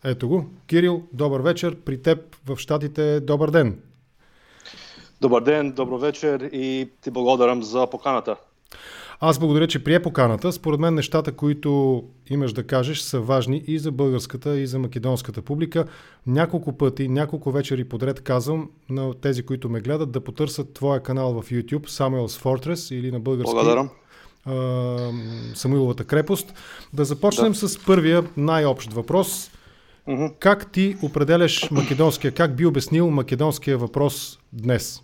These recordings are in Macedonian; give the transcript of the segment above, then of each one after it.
Ето го. Кирил, добър вечер. При теб в Щатите добър ден. Добър ден, добро вечер и ти благодарам за поканата. Аз благодаря, че прие поканата. Според мен нещата, които имаш да кажеш, са важни и за българската, и за македонската публика. Няколко пъти, няколко вечери подред казвам на тези, които ме гледат, да потърсят твоя канал в YouTube, Samuel's Fortress, или на български Самуиловата крепост. Да започнем с първия най-общ въпрос. Как ти определяш македонския, как би обяснил македонския въпрос днес?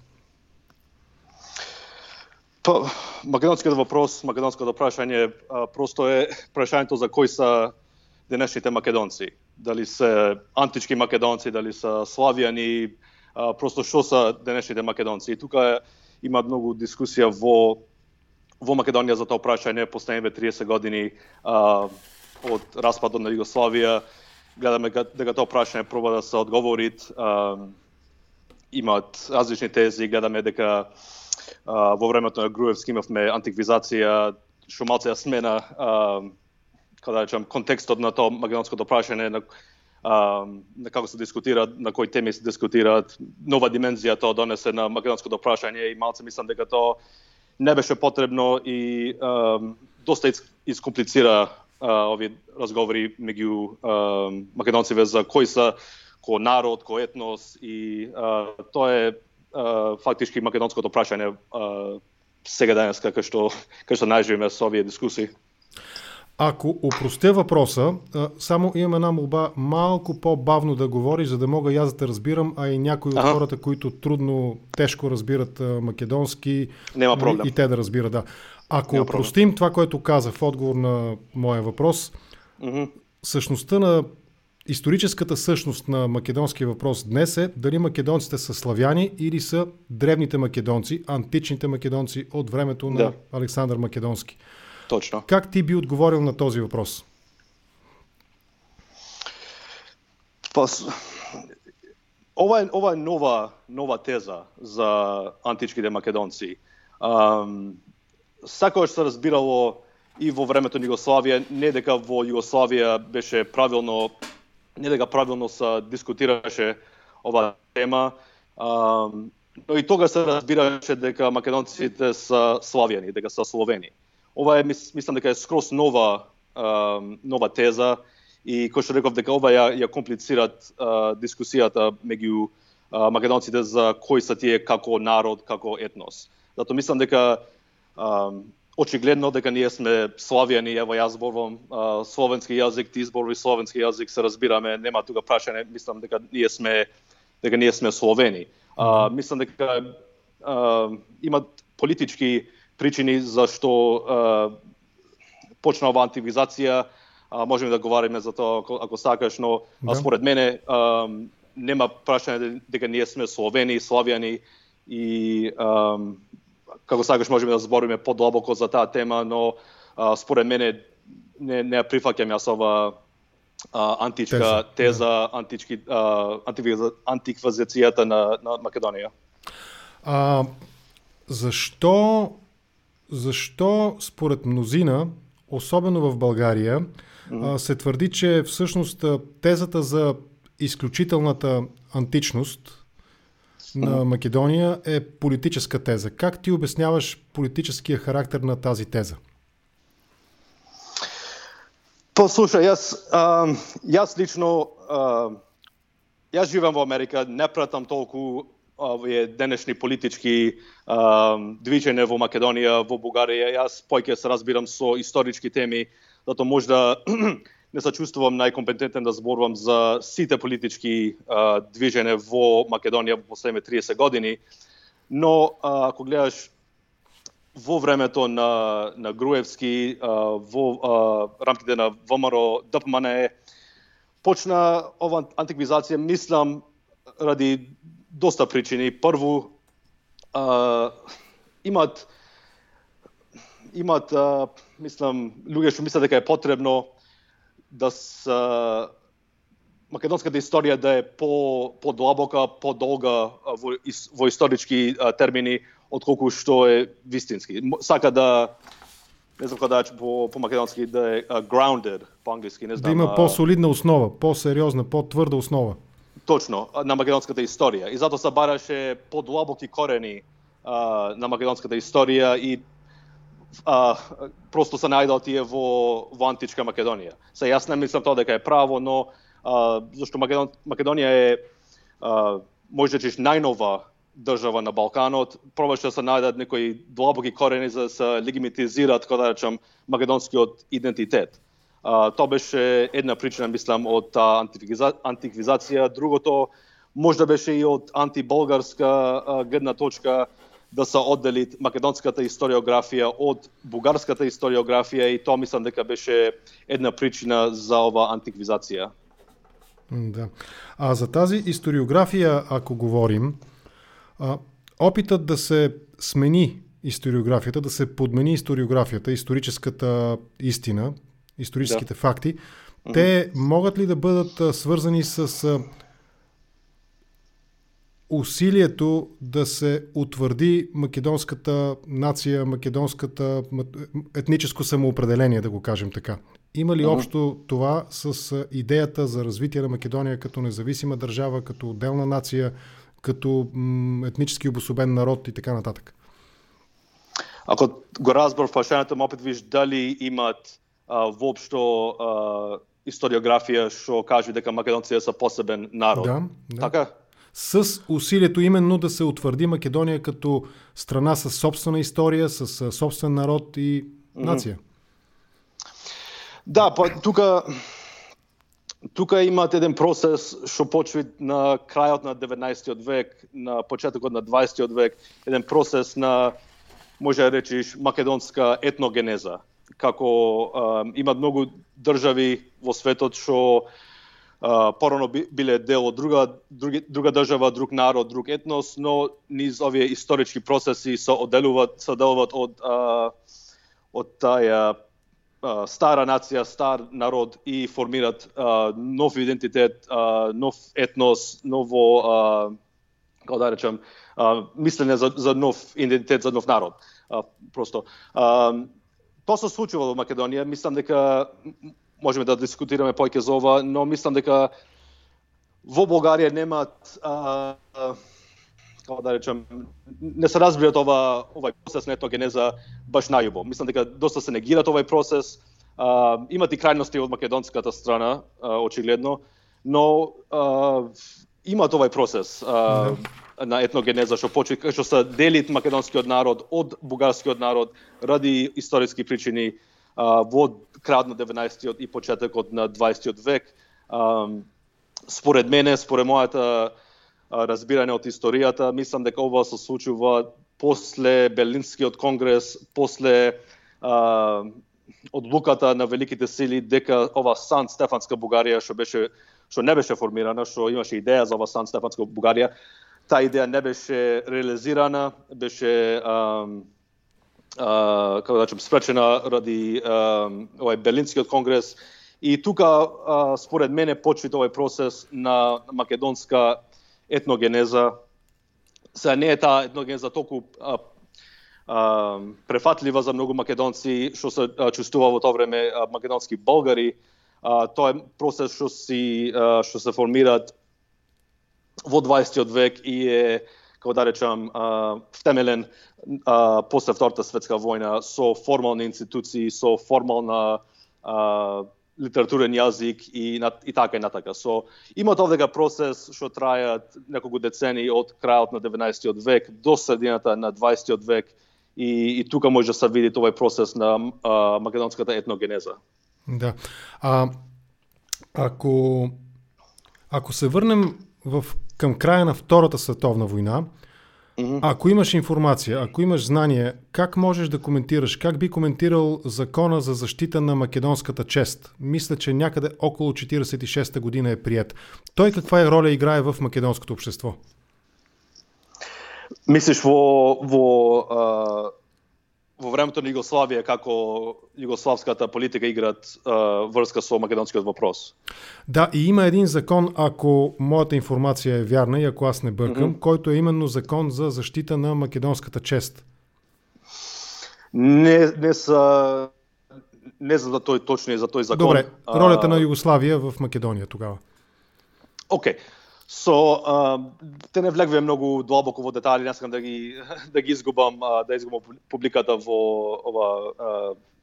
Македонският въпрос, македонското прашање просто е прашањето за кои са денешните македонци. Дали се антички македонци, дали са славјани, просто што са денешните македонци. И тука има многу дискусија во Македонија за тоа прашање последните 30 години од распадот на Југославија. Гледаме дека тоа прашање проба да се одговорит. Имаат различни тези, гледаме дека во времето на Груевски имавме антиквизација, што малце ја смена контекстот на тоа македонското прашање, на како се дискутира, на кои теми се дискутираат. Нова димензија тоа донесе на македонското прашање и малце мислам дека тоа не беше потребно и доста искомплицира овие разговори меѓу македонците за кои са кој народ, кој етнос и тоа е фактички македонското прашање сега денеска кај што најживеме со овие дискусии. Ако упростя въпроса, само имам една молба малко по-бавно да говориш, за да мога и аз да те разбирам, а и някои от хората, които тежко разбират македонски, нема проблем. И те да разбират, да. Ако упростим това, което каза в отговор на моя въпрос, същността на историческата същност на македонския въпрос днес е дали македонците са славяни или са древните македонци, античните македонци от времето на Александър Македонски. Точно. Как ти би отговорил на този въпрос? Ова е нова теза за античките македонци. Сакогаш се разбирало и во времето на Југославија, не дека во Југославија беше правилно, не дека правилно се дискутираше ова тема, но и тога се разбираше дека македонците са славјани, дека са словени. Ова е, мислам дека е скроз нова теза и кој што реков дека ова ја комплицират дискусијата меѓу македонците за кои са тие како народ, како етнос. Зато мислам дека очигледно дека ние сме славјани, ево јас зборувам словенски јазик, ти зборувај словенски јазик, се разбираме, нема тука прашање, мислам дека ние сме словени. Мислам дека имат политички причини зашто почна ова антивизација, можеме да говориме за тоа ако сакаш, но според мене нема прашање дека ние сме словени, славјани и како сакаш можеме да збориме подлабоко за таа тема, но според мене не прифаќам јас ова античка теза, антиквизацијата на Македонија. Защо според мнозина, особено в България, се твърди, че всъщност тезата за изключителната античност на Македония е политическа теза? Как ти обясняваш политическия характер на тази теза? Послушај, јас лично, јас живеам во Америка, не пратам толку овие денешни политички движења во Македонија, во Бугарија. Јас поќе се разбирам со исторички теми, зато можда не се чувствувам најкомпетентен да зборувам за сите политички движења во Македонија во последните 30 години. Но ако гледаш во времето на Груевски, во рамките на ВМРО, ДПМНЕ, почна ова антиквизација, мислам, ради доста причини. Прво, имат мислам, луѓе што мислат дека е потребно да македонската историја да е подлабока, подолга во исторички термини, отколку што е вистински. Сака да не знам кога по македонски да е grounded, по англиски, не знам. Да има по-солидна основа, по-сериозна, по-тврда основа. Точно, на македонската историја. И затоа се бараше подлабоки корени на македонската историја и просто се најдал тие во античка Македонија. Јас не мислам тоа дека е право, но зашто Македонија е може да најнова држава на Балканот, пробаше да се најдат некои длабоки корени за да се легитимизираат, кога да речам, македонскиот идентитет. Тоа беше една причина, мислам, од антиквизација. Другото може да беше и од антиболгарска гледна точка, да се оддели македонската историографија од бугарската историографија, и тоа мислам дека беше една причина за ова антиквизација. Да. А за тази историографија, ако говорим, опитът да се смени историографията, да се подмени историографията, историческата истина, историческите факти, те могат ли да бъдат свързани с усилието да се утвърди македонската нация, македонската етническо самоопределение, да го кажем така? Има ли общо това с идеята за развитие на Македония като независима държава, като отделна нация, като етнически обособен народ и така нататък? Ако го разбор прашањето, опет виж дали имат воопшто историографија што кажи дека македонците се посебен народ. Да. Така? С усилието именно да се утвърди Македония като страна с собствена история, с собствен народ и нация. Да, тука имат еден процес што почва на крајот на 19 век, на почетокот на 20 век, еден процес на, може да речиш, македонска етногенеза. Како имат многу држави во светот што порано биле дел од друга држава, друг народ, друг етнос, но низ овие исторички процеси се одделуваат од таа стара нација, стар народ и формират нов идентитет, нов етнос, ново, како да речем, мислење за нов идентитет, за нов народ. Просто тоа се случува во Македонија. Мислам дека можеме да дискутираме повеќе за ова, но мислам дека во Бугарија немаат, како да речем, не се разбират овај процес на етногенеза баш најубаво. Мислам дека доста се негират овај процес. Имат и крајности од македонската страна, очигледно, но имат овај процес на етногенеза што се дели македонскиот народ од бугарскиот народ ради историски причини во крајот на 19-тиот и почетокот на 20-тиот век. Според мене, според мојата разбирање од историјата, мислам дека ова се случува после Берлинскиот конгрес, после одлуката на великите сили дека ова Сан Стефанска Бугарија што не беше формирана, што имаше идеја за ова Сан Стефанска Бугарија, таа идеја не беше реализирана, беше како да речем спречена ради овој Берлинскиот конгрес, и тука според мене почва овој процес на македонска етногенеза. Сега не е таа етногенеза толку префатлива за многу македонци што се чувствува во тоа време македонски болгари. Тоа е процес што се формираат во 20 век и е, како да речам, втемелен после Втората светска војна со формални институции, со формална литературен јазик и така и натака. Имат овдека процес што трајат неколку децении од крајот на 19 век до средината на 20 век, и тука може да се види овој процес на македонската етногенеза. Да. Ако се върнем към края на Втората световна война, ако имаш информация, ако имаш знание, как можеш да коментираш, как би коментирал закона за защита на македонската чест? Мисля, че някъде около 46-та година е приет. Той каква роля играе в македонското общество? Мислиш во времето на Југославија, како југославската политика играат врска со македонскиот въпрос? Да, и има един закон, ако моята информация е вярна и ако аз не бъркам, който е именно закон за защита на македонската чест. Не се не за да тој точно за тој закон. Добре, ролята на Југославија в Македонија тогава. Океј. Те не влегве многу длабоко во детали, не сакам да ги изгубам, публиката во ова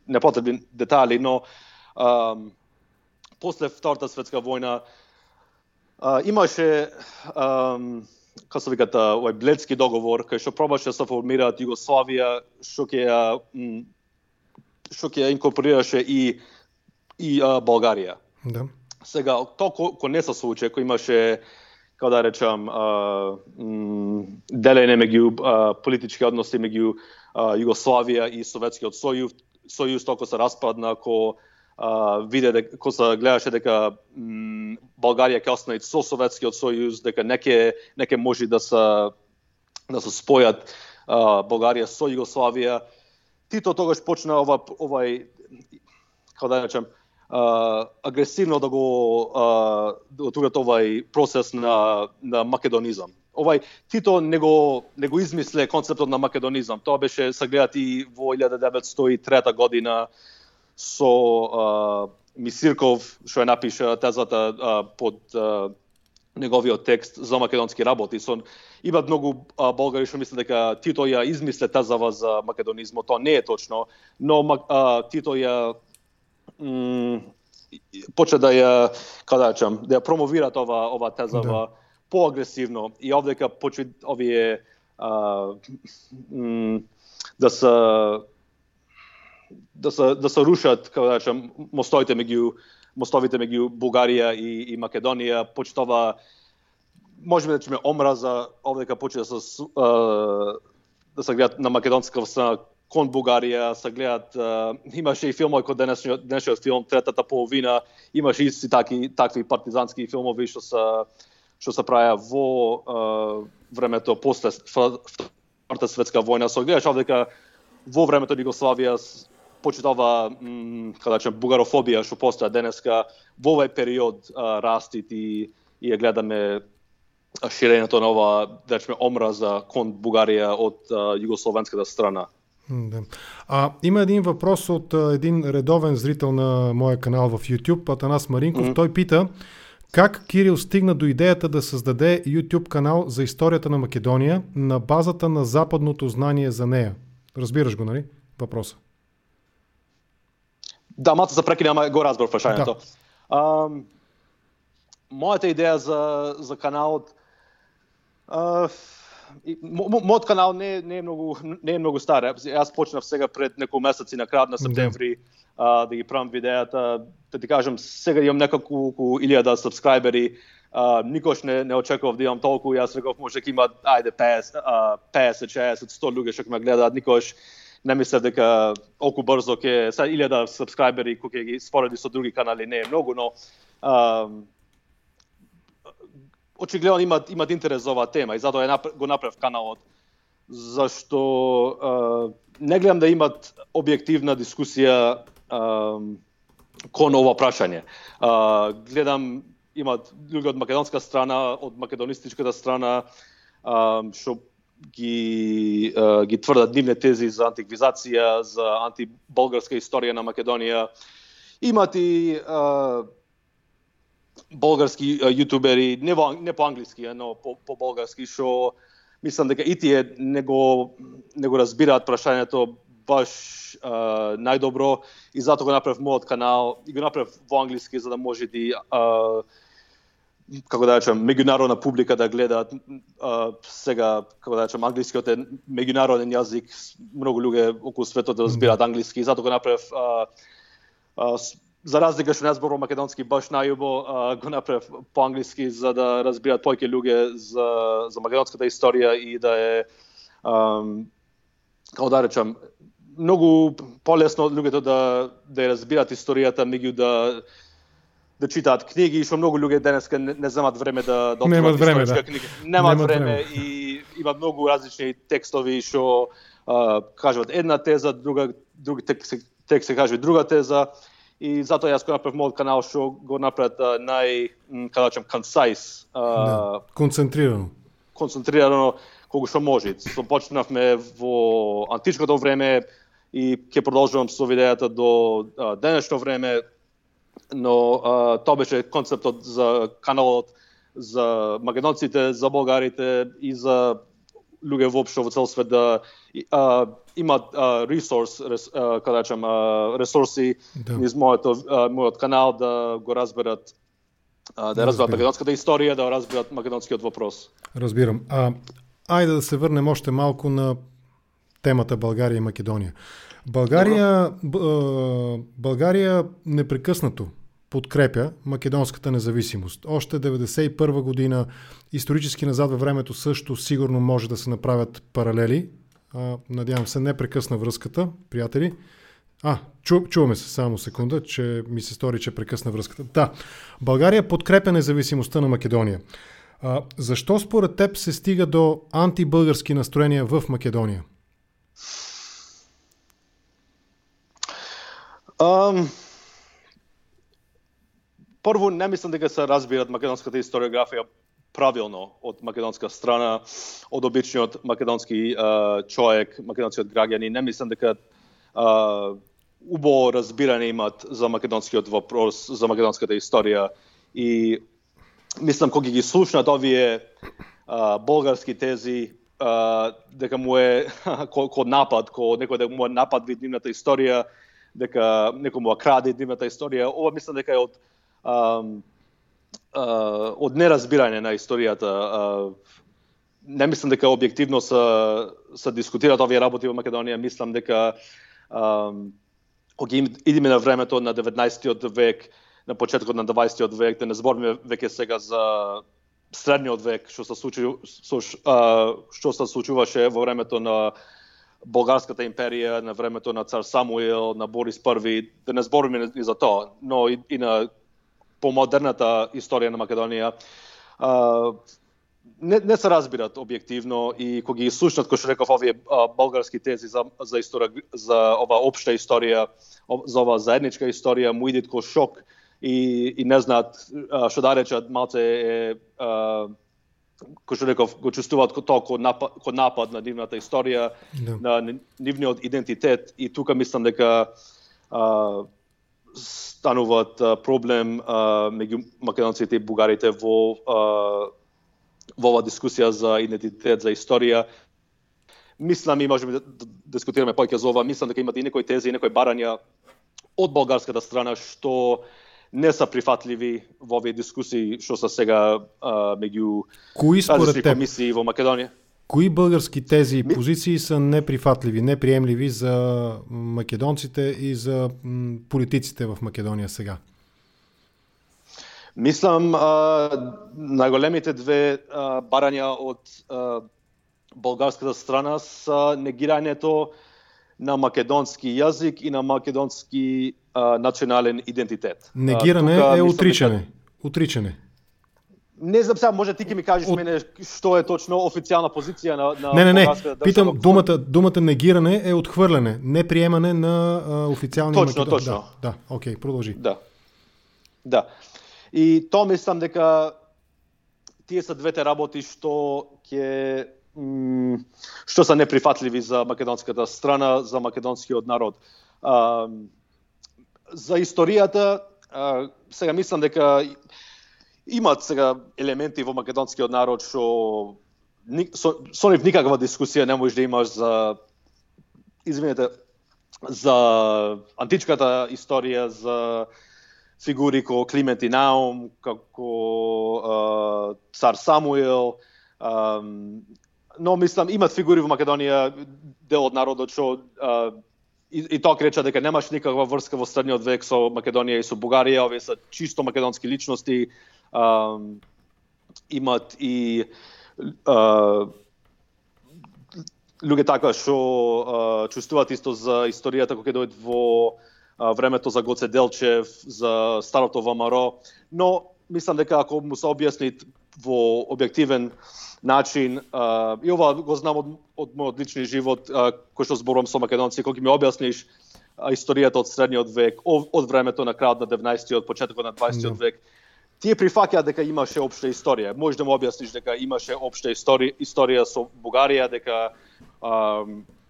непотребни детали, но после Втората светска војна имаше како се викат овој Бледски договор кај што пробаше да се формираат Југославија, што ќе инкорпорираше и Българија. Да. Сега тоа кој не се случи, кој имаше како да речам делење меѓу политички односи меѓу Југославија и Советскиот сојуз току се распадна, ко се гледаше дека Българија ќе остане со Советскиот сојуз, дека неке може да се спојат Българија со Југославија. Тито тогаш почна овај како да речам агресивно да го отворат овај процес на македонизам. Тито не го измисле концептот на македонизам. Тоа беше сагледат и во 1903 година со Мисирков, што ја напиша тезата под неговиот текст за македонски работи. Има многу болгари што мислат дека Тито ја измисле тезава за македонизмот. Тоа не е точно, но Тито ја почна да ја, како да речам, да ја промовира ова тезава поагресивно и овдека почна овие да се рушат, како да речам, мостовите меѓу Бугарија и Македонија, почнува можеме да речеме омраза, овдека почна да се гледат на македонска страна кон Бугарија, се гледат, имаше и филмови кој денешниот филм Третата половина, имаше исти такви партизански филмови што се правеа во времето после Втората светска војна. Се гледаш овдека во времето на Југославија почитава како да речем бугарофобија што постоја денеска, во овој период растит и ја гледаме ширењето на ова, да речеме, омраза кон Бугарија од југословенската страна. Да. Има един въпрос от един редовен зрител на моя канал в YouTube, Атанас Маринков. Той пита как Кирил стигна до идеята да създаде YouTube канал за историята на Македония на базата на западното знание за нея. Разбираш го, нали? Въпроса. Да, малко се прекина, ама го разбрав прашањето. Да. Моята идеја за каналот, мојот канал не е многу стар. Јас почнав сега пред неколку месеци на крајот на септември да ги правам видеата. Да ти кажам, сега имам неколку 1000 сабскрајбери. Никош не очекував да имам толку. Јас реков може дека има 50, 60, 100 луѓе што ме гледаат. Никош не мислев дека толку брзо ќе 1000 сабскрајбери кои ќе ги спореди со други канали не е многу, но очигледно имат интерес за оваа тема и затоа го направив каналот, зашто не гледам да имат објективна дискусија кон ова прашање. Гледам имат луѓе од македонска страна, од македонистичката страна, што ги тврдат нивни тези за антиквизација, за антиболгарска историја на Македонија. Имат и болгарски јутубери, не по англиски, но по болгарски, што мислам дека и тие не го разбираат прашањето баш најдобро и затоа го направив мојот канал и го направив во англиски за да може и како да речем меѓународна публика да гледаат сега, како да речем, англискиот е меѓународен јазик, многу луѓе околу светот да разбираат англиски и затоа го направив за разлика што не зборувам македонски баш најубо, го направив по англиски за да разбираат повеќе луѓе за македонската историја и да е како да речем многу полесно луѓето да ја разбираат историјата меѓу да читаат книги, што многу луѓе денеска не земат време да отворат историчка книга. Немат време и има многу различни текстови што кажуваат една теза, други текст се кажува друга теза. И затоа јас го направив мојот канал што го направат како да речем concise, концентрирано колку што може. Почнавме во античкото време, и ќе продолжувам со идејата до денешно време, но тоа беше концептот за каналот, за македонците, за болгарите и за луѓе воопшто во цел свет да имаат ресурси низ мојот канал да го разберат, да разберат македонската историја, да разберат македонскиот вопрос. Разбирам. Ајде да се врнем още малку на темата Българија и Македонија. Българија непрекъснато подкрепя македонската независимост. Още 1991 година, исторически назад във времето също сигурно може да се направят паралели. Надявам се, не прекъсна връзката, приятели. Чуваме се, само секунда, че ми се стори, че прекъсна връзката. Да, България подкрепя независимостта на Македония. Защо според теб се стига до антибългарски настроения в Македония? Прво, не мислам дека се разбират македонската историографија правилно од македонска страна, од обичниот македонски човек, македонскиот граѓани. Не мислам дека убаво разбирање имат за македонскиот вопрос, за македонската историја. И мислам, кога ги слушнат овие болгарски тези, дека му е ко напад, некој да му е напад вид нивната историја, дека некој му краде нивната историја. Ова мислам дека е од неразбирање на историјата. Не мислам дека објективно се дискутираат овие работи во Македонија. Мислам дека кога идеме на времето на 19-тиот век, на почетокот на 20-тиот век, да не збориме веќе сега за средниот век, што се случуваше во времето на Болгарската империја, на времето на цар Самуил, на Борис I, да не збориме и за тоа, но и на помодерната историја на Македонија, не се разбират објективно и кога ги слушнат, кој што реков, овие болгарски тези за ова општа историја, за ова заедничка историја, му идат ко шок и не знаат што да речат, малце кој што реков, го чувствуваат тоа ко напад на нивната историја, на нивниот идентитет, и тука мислам дека стануваат проблем меѓу македонците и бугарите во ова дискусија за идентитет, за историја. Мислам, и можеме да дискутираме повеќе за ова, мислам дека имате и некои тези, и некои барања од болгарската страна што не са прифатливи во овие дискусии што се сега меѓу различни комисии во Македонија. Кои български тези и позиции са неприфатливи, неприемливи за македонците и за политиците в Македонија сега? Мислам, најголемите две барања од болгарската страна са негирањето на македонски јазик и на македонски национален идентитет. Негирање е отричање. Отричање. Не знам сега, може ти ќе ми кажеш мене што е точно официјална позиција на Не. Питам, думата негирање е отхврляне, неприемане на официјални македонски. Точно. Да, окей, продолжи. Да. И тоа мислам дека тие се двете работи што се неприфатливи за македонската страна, за македонскиот народ. За историјата, сега мислам дека имат сега елементи во македонскиот народ што со нив никаква дискусија не можеш да имаш за античката историја, за фигури како Климент и Наум, како цар Самуил, но мислам имат фигури во Македонија, дел од народот што и тоа креча дека немаш никаква врска во средниот век со Македонија и со Бугарија, овие се чисто македонски личности. Имат и луѓе така што чувствуваат исто за историјата кога ќе дојдат во времето за Гоце Делчев, за старото ВМРО, но мислам дека ако му се објасни во објективен начин, и ова го знам од мојот лични живот, кој што зборувам со македонци, кога ми објасниш историјата од средниот век, од времето на крајот на 19-тиот, почетокот на 20-тиот век, тие прифаќаат дека имаше општа историја. Можеш да му објасниш дека имаше општа историја со Бугарија, дека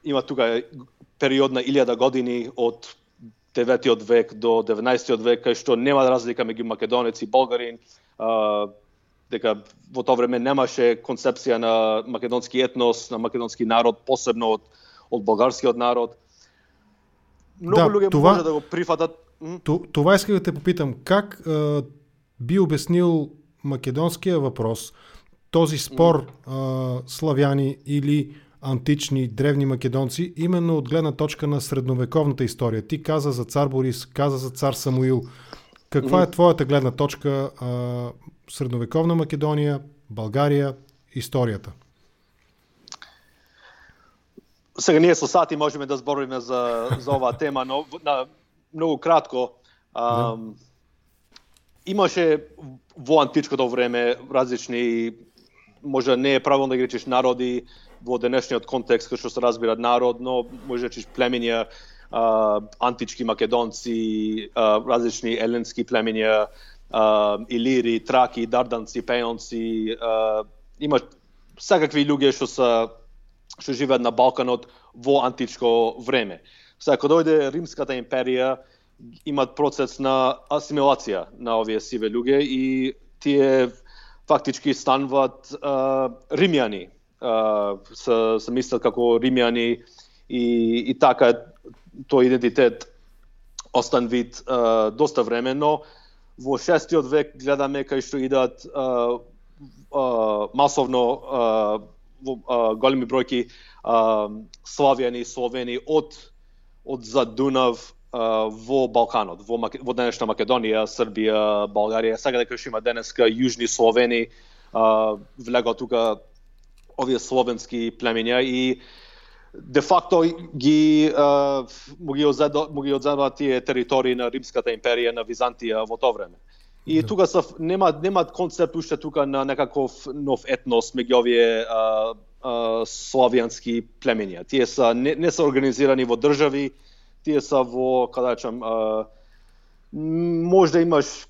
има тука период на 1000 години од 9 век до 19 век, кај што нема разлика меѓу македонец и болгарин, дека во тоа време немаше концепција на македонски етнос, на македонски народ, посебно од болгарскиот народ. Многу луѓе може да го прифатат. Това искам да те попитам. Как би обяснил македонския въпрос, този спор славяни или антични, древни македонци, именно от гледна точка на средновековната история? Ти каза за цар Борис, каза за цар Самуил. Каква е твоята гледна точка? Средновековна Македония, България, историята? Сега ние со сати можеме да збориме за оваа тема, но многу кратко. Имаше во античкото време различни, може не е правилно да ги речеш народи во денешниот контекст, кај што се разбира народ, но може да речеш племиња, антички македонци, различни еленски племиња, илири, траки, дарданци, пеонци, има секакви луѓе што живеат на Балканот во античко време. Сега, кога дојде Римската империја, имат процес на асимилација на овие сиве луѓе и тие фактички стануваат римјани. Се мислат како римјани и така тој идентитет остан вид доста време, но во 6 век гледаме кај што идат масовно големи бројки славјани, словени од зад Дунав во Балканот, во денешна Македонија, Србија, Българија, сега дека што има денеска јужни словени, влегоа тука овие словенски племиња и де факто му ги одземаат тие територии на Римската империја, на Византија во тоа време. И тука немаат концепт уште тука на некаков нов етнос меѓу овие славјански племиња. Тие не се организирани во држави, тие са во, каде речам, може да имаш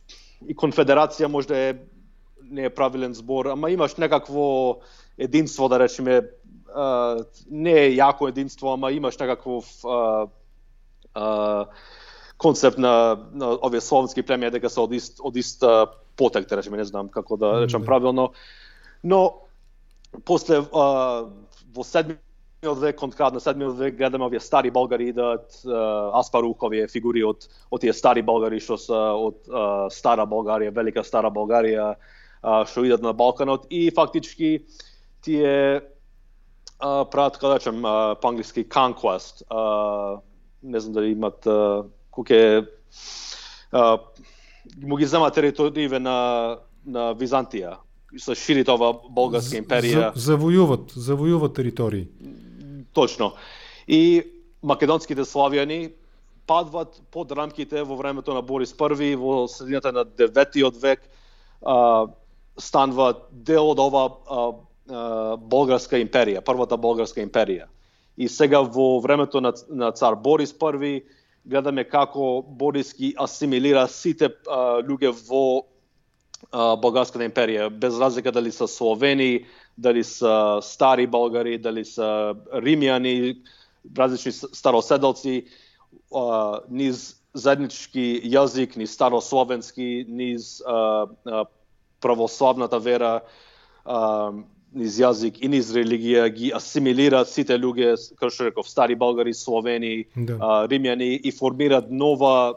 и конфедерација, може да не е правилен збор, ама имаш некакво единство, да речеме, не е јако единство, ама имаш некаков концепт на овие словенски племиња дека се од ист потек, да речеме, не знам како да речам правилно. Но после во 7 век, кон крајот на 7 век гледаме овие стари болгари идат, Аспарух, овие фигури од тие стари болгари што се од Стара Болгарија, Велика Стара Болгарија, што идат на Балканот и фактички тие прават, како да речем, по англиски conquest. Не знам дали имат кој му ги зема териториите на Византија. Се шири ова болгарска империја. Завојуват територии. Точно. И македонските славјани падват под рамките во времето на Борис I, во средината на 9 век, стануваат дел од ова болгарска империја, првата болгарска империја. И сега во времето на цар Борис I гледаме како Борис ги асимилира сите луѓе во болгарската империја, без разлика дали се словени, дали се стари болгари, дали се римјани, различни староседалци, низ заеднички јазик, низ старословенски, низ православната вера, низ јазик и низ религија ги асимилираат сите луѓе, како што реков, стари болгари, словени, римјани и формираат нова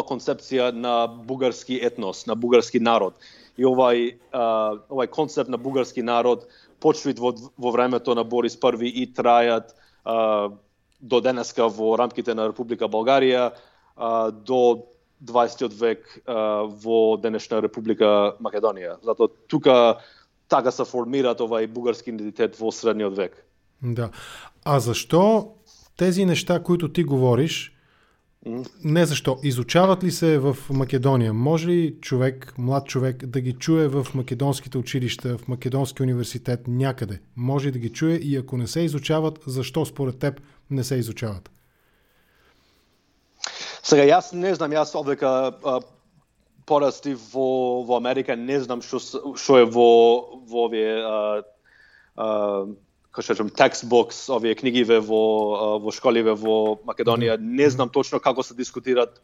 концепција на бугарски етнос, на бугарски народ. И овај концепт на бугарски народ почнат во времето на Борис I и трајат до денеска во рамките на Република Българија до 20 век во денешна Република Македонија. Затоа тука така се формираат овај бугарски идентитет во средниот век. Да. А зашто тези неща, които ти говориш, не защо, изучават ли се в Македония? Може ли човек, млад човек, да ги чуе в македонските училища, в македонски университет някъде? Може да ги чуе и ако не се изучават, защо според теб не се изучават? Сега, јас не знам, јас овдека порасти во Америка, не знам што е во овие, textbooks, овие книгиве во школиве во Македонија. Не знам точно како се дискутираат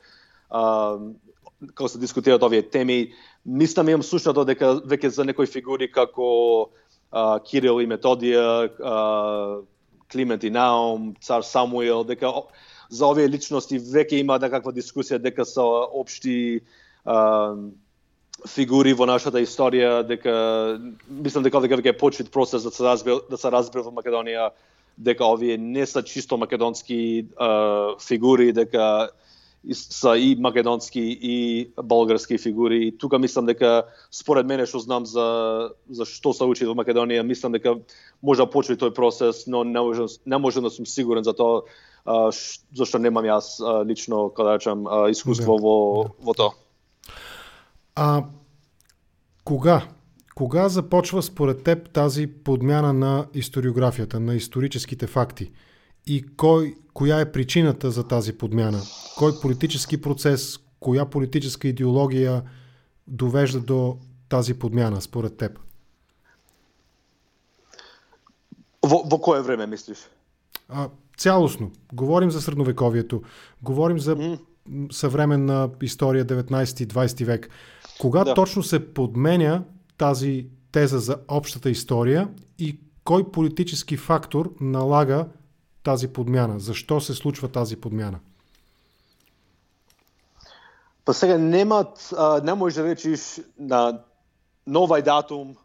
овие теми. Мислам, имам слушнато дека веќе за некои фигури како Кирил и Методија, Климент и Наум, цар Самуил, дека за овие личности веќе има некаква дискусија дека се општи фигури во нашата историја, дека мислам дека веќе почит процес да се разбере во Македонија дека овие не се чисто македонски фигури, дека са и македонски и болгарски фигури. И тука мислам дека според мене што знам за што се учи во Македонија, мислам дека може да почне тој процес, но не можам да сум сигурен за тоа, зашто немам јас лично, кога речам, искуство во тоа. Кога започва според теб тази подмяна на историографията, на историческите факти? И која е причината за тази подмяна? Кој политически процес, која политическа идеологија довежда до тази подмяна според теб? Во кое време мислиш? Цялостно. Говорим за средновековието, говорим за съвременна история 19-20 век. Кога точно се подменя тази теза за общата история и кой политически фактор налага тази подмяна? Защо се случва тази подмяна? Па сега не можеш да речиш на овај датум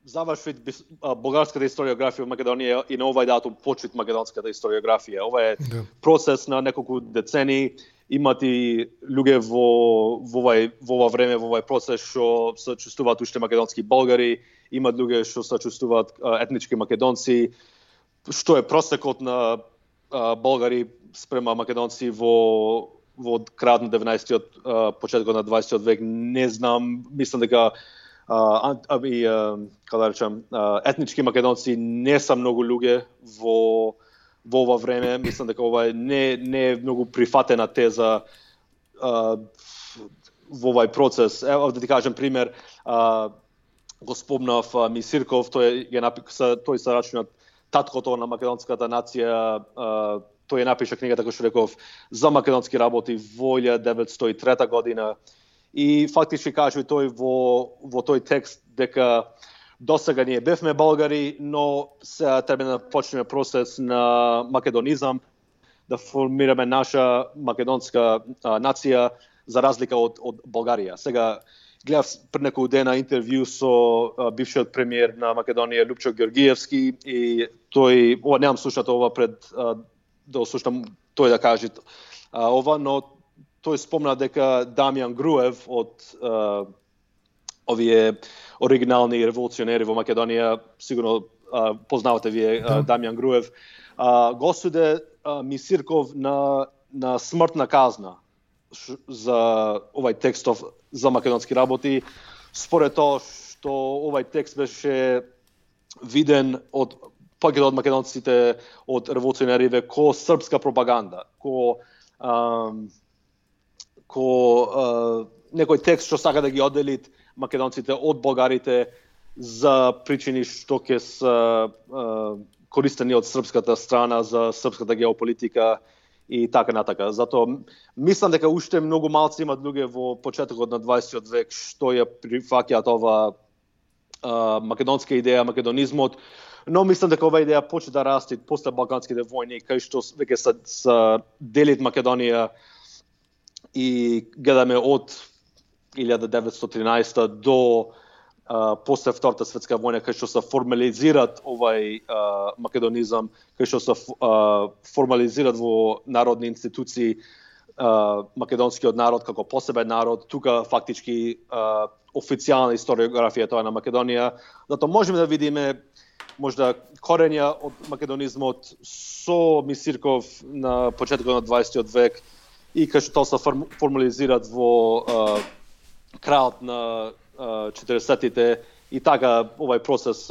заврши болгарската историографија во Македонија и на овај датум почит македонската историографија. Ова е процес на неколку децени. Имат и луѓе во ова време, во овај процес што се чувствуваат уште македонски болгари, имат луѓе што се чувствуваат етнички македонци, што е просекот на болгари спрема македонци во крајот на 19-тиот, почетокот на 20-тиот век. Не знам, мислам дека етнички македонци не се многу луѓе во ова време. Мислам дека ова не е многу прифатена теза во овај процес. Ево да ти кажем пример, го спомнав Мисирков, тој се рачунат таткото на македонската нација. Тој напиша книгата, како што реков, за македонски работи во 1903 година. И фактички кажува тој во тој текст дека досега ние бевме болгари, но се треба да почнеме процес на македонизам, да формираме наша македонска нација за разлика од Болгарија. Сега гледав пред неколку дена интервју со бившиот премиер на Македонија Лупчо Георгиевски и тој, немам слушнато ова пред да слушам тој да каже ова, но тој спомна дека Дамјан Груев од овие оригинални револуционери во Македонија, сигурно познавате вие Дамјан Груев, го суде Мисирков на смртна казна за овај текстов за македонски работи, според тоа што овај текст беше виден од повеќето од македонците, од револуционериве, ко српска пропаганда, ко некој текст што сака да ги оддели македонците од болгарите за причини што ќе се користени од српската страна за српската геополитика и така натака. Затоа мислам дека уште многу малци имат луѓе во почетокот на 20-тиот век што ја прифаќаат ова македонска идеја, македонизмот, но мислам дека ова идеја почне да расте после балканските војни, кај што веќе се делит Македонија и гледаме од 1913 до после Втората светска војна, кај што се формализират овај македонизам, кај што се формализират во народни институции македонскиот народ како посебен народ. Тука фактички официјална историографија тоа на Македонија. Затоа можеме да видиме можда корења од македонизмот со Мисирков на почетокот на 20-тиот век и кај што тоа се формализират во крајот на 40-тите и така овај процес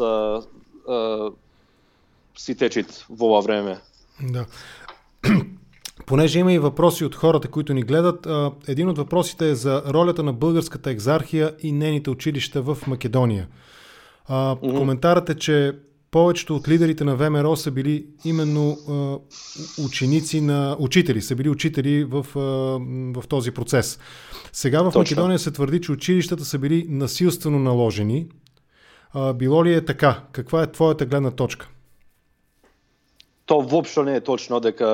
си течит во ова време. Да. Понеже има и въпроси от хората, които ни гледат, един от въпросите е за ролята на българската екзархия и нейните училища в Македония. Коментарът е, че повечето от лидерите на ВМРО са били именно учители, са били учители в този процес. Сега в Македония се твърди, че училищата са били насилствено наложени. Било ли е така? Каква е твоята гледна точка? То воопшто не е точно дека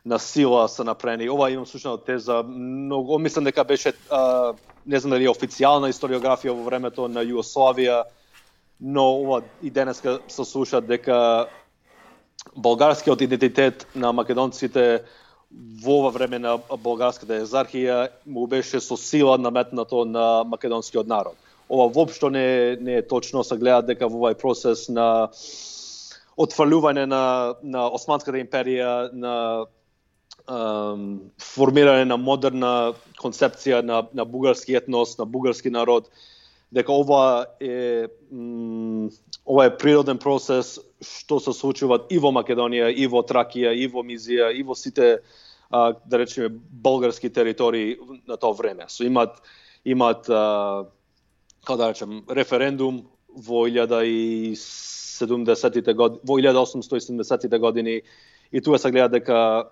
на сила са направени. Ова имам слушнал теза, многу мислам дека беше не знам дали официјална историографија во времето на Југославија, но ова и денеска се слуша дека болгарскиот идентитет на македонците во ова време на болгарската екзархија му беше со сила наметнато на македонскиот народ. Ова воопшто не е точно, се гледа дека во овај процес на отфрлување на Османската империја, на формирање на модерна концепција на бугарски етнос, на бугарски народ, дека ова е природен процес што се случува и во Македонија, и во Тракија, и во Мизија, и во сите, да речеме, болгарски територии на тоа време. So имат како да речем, референдум во 1870-те години и тука се гледа дека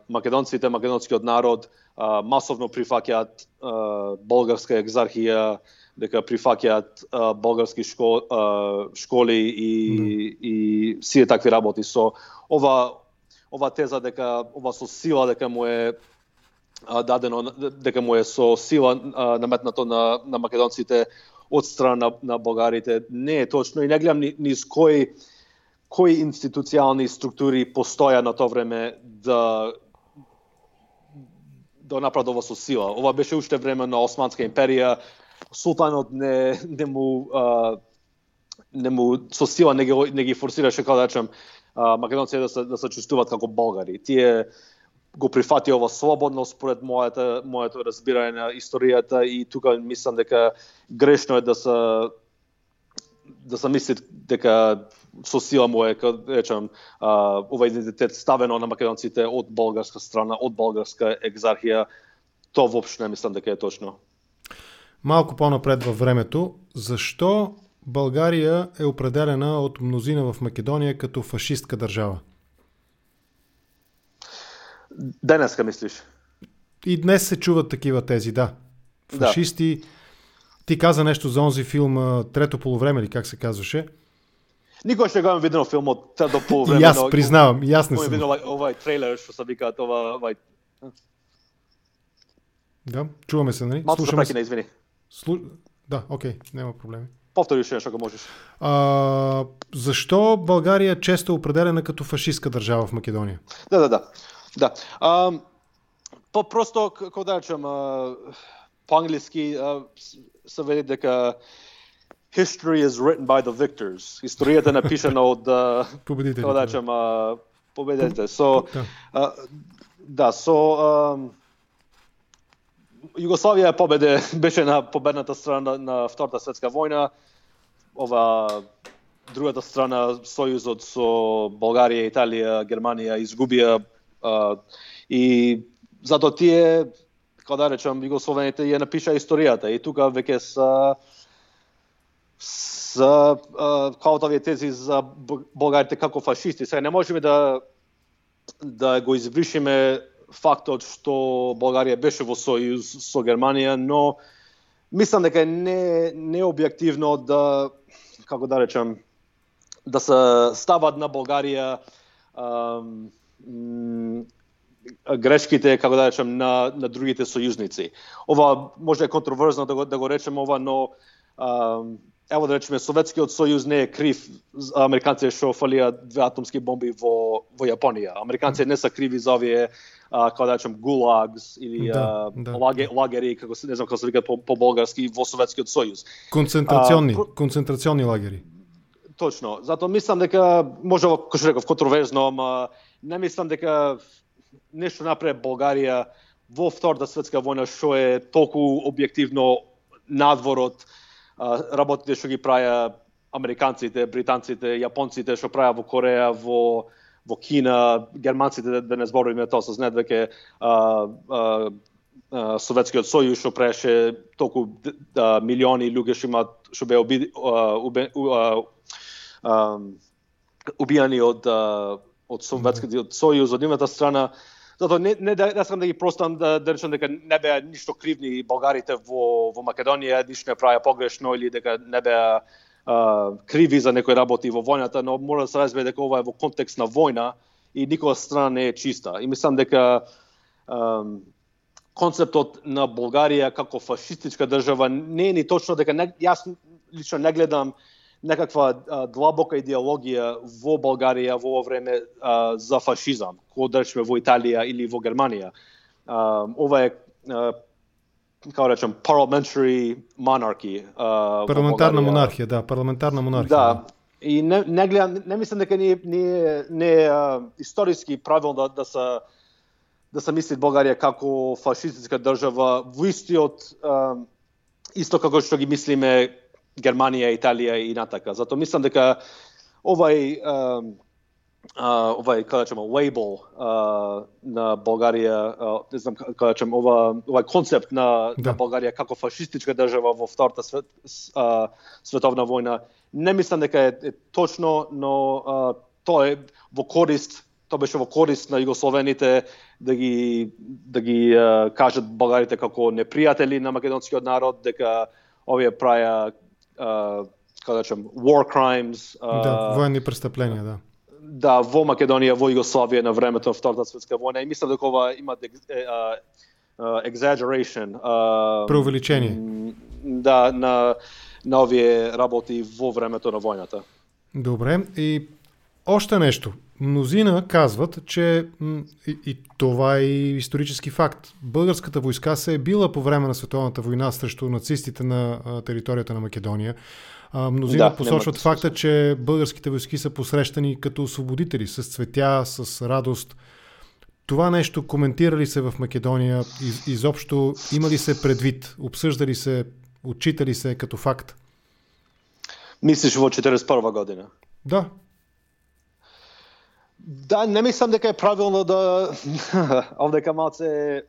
македонците, македонскиот народ масовно прифаќаат болгарска екзархија, дека прифаќаат болгарски школи и сите такви работи. Со ова теза дека ова со сила дека му е дадено, дека му е со сила наметнато на македонците од страна на болгарите, не е точно и не гледам низ кои институционални структури постоја на тоа време да направат ова со сила. Ова беше уште време на Османска империја. Султанот не му со сила не ги форсираше, како да речем, македонците да се чувствуваат како болгари. Тие го прифати ова слободно според моето разбирање на историјата и тука мислам дека грешно е да се мисли дека со сила му е, речем, ова идентитет ставено на македонците од болгарска страна, од болгарска екзархија. Тоа воопшто не мислам дека е точно. Малку по-напред във времето, защо България е определена от мнозина в Македония като фашистка държава? Денеска мислиш? И днес се чуват такива тези, да. Фашисти. Да. Ти каза нещо за онзи филм Трето полувреме, или как се казваше? Никога ще го имам видено филмот Трето полувреме. И аз признавам, и аз не съм. Видено овај трейлер, што се викаат овај. Да, чуваме се, нали? Малко се прекина, извини. Да, окей, няма проблеми. Повтори уште нешто, ако можеш. Защо България често е определена като фашистка държава в Македония? Да. Просто, како да речем, по-англиски се вели дека history is written by the victors. Историјата е напишана од победителите. Како да речем, победителите. Југославија беше на победната страна на Втората светска војна. Ова другата страна, сојузот со Болгарија, Италија, Германија изгубија и затоа тие, како да речем, југословените ја напишаа историјата и тука веќе са каотовие тези за болгарите како фашисти. Сега не можеме да го извршиме фактот што Болгарија беше во сојуз со Германија, но мислам дека не е објективно да, како да речем, да се стават на Болгарија грешките, како да речем, на другите сојузници. Ова може е контроверзно да го речем ова, но ево да речеме, Советскиот сојуз не е крив американците што фалија 2 атомски бомби во Јапонија. Американците не се криви за овие, како да речем, гулагс или лагери, како не знам како се викаат по болгарски, во Советскиот сојуз. Концентрационни лагери. Точно. Затоа мислам дека може како што реков контроверзно, ама не мислам дека нешто направи Болгарија во Втората светска војна што е толку објективно надвор од работите што ги праја американците, британците, јапонците што праја во Кореја, во Кина, германците, да не зборуваме тоа, се знаат веќе Советскиот сојуз што праеше толку милиони луѓе што беа убијани од Советскиот сојуз од едната страна. Затоа не сакам да ги простам да речам дека не беа ништо кривни болгарите во Македонија, ништо не правеа погрешно или дека не беа криви за некои работи во војната, но мора да се разбере дека ова е во контекст на војна и никоја страна не е чиста. И мислам дека концептот на Болгарија како фашистичка држава не е ни точно дека јас лично не гледам некаква длабока идеологија во Болгарија во ова време за фашизам, кој да речеме во Италија или во Германија. Ова е како речем parliamentary monarchy. Парламентарна монархија, да, парламентарна монархија. Да. И не гледам, не мислам дека не историски правилно да се мисли Болгарија како фашистичка држава во исто како што ги мислиме Германија, Италија и натака. Затоа мислам дека овај како да речеме лейбл на Болгарија, не знам како да речем овај концепт на Болгарија како фашистичка држава во Втората световна војна, не мислам дека е точно, но тоа беше во корист на југословените да ги кажат болгарите како непријатели на македонскиот народ, дека овие праја како да речем war crimes, воени престъпления, да. Да, во Македонија, во Југославија на времето на Втората светска војна, и мислам дека ова има exaggeration, преувеличение. Да, на овие работи во времето на војната. Добре, и още нешто. Мнозина казват, че и това е исторически факт. Българската войска се е била по време на Световната война срещу нацистите на територията на Македония. Мнозина посочват факта, че българските войски са посрещани като освободители, с цветя, с радост. Това нещо коментира ли се в Македония? Изобщо има ли се предвид? Обсъжда ли се, отчита ли се като факт? Мислиш во 41 година? Да. Да, не мислам дека е правилно да овдека малце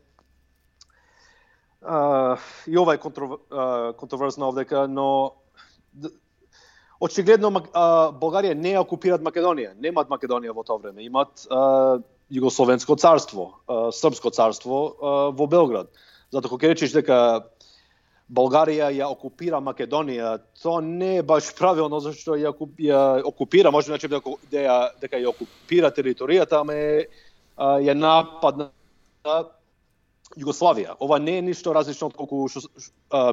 и ова е контроверзно овдека, но очигледно Болгарија не е окупират Македонија, немаат Македонија во тоа време, имаат Југословенско царство, Српско царство во Белград. Затоа кога речеш дека Болгарија ја окупира Македонија, тоа не е баш правилно, зашто ја окупира, може да речеме дека ја окупира територијата, ама ја нападна Југославија. Ова не е ништо различно од колку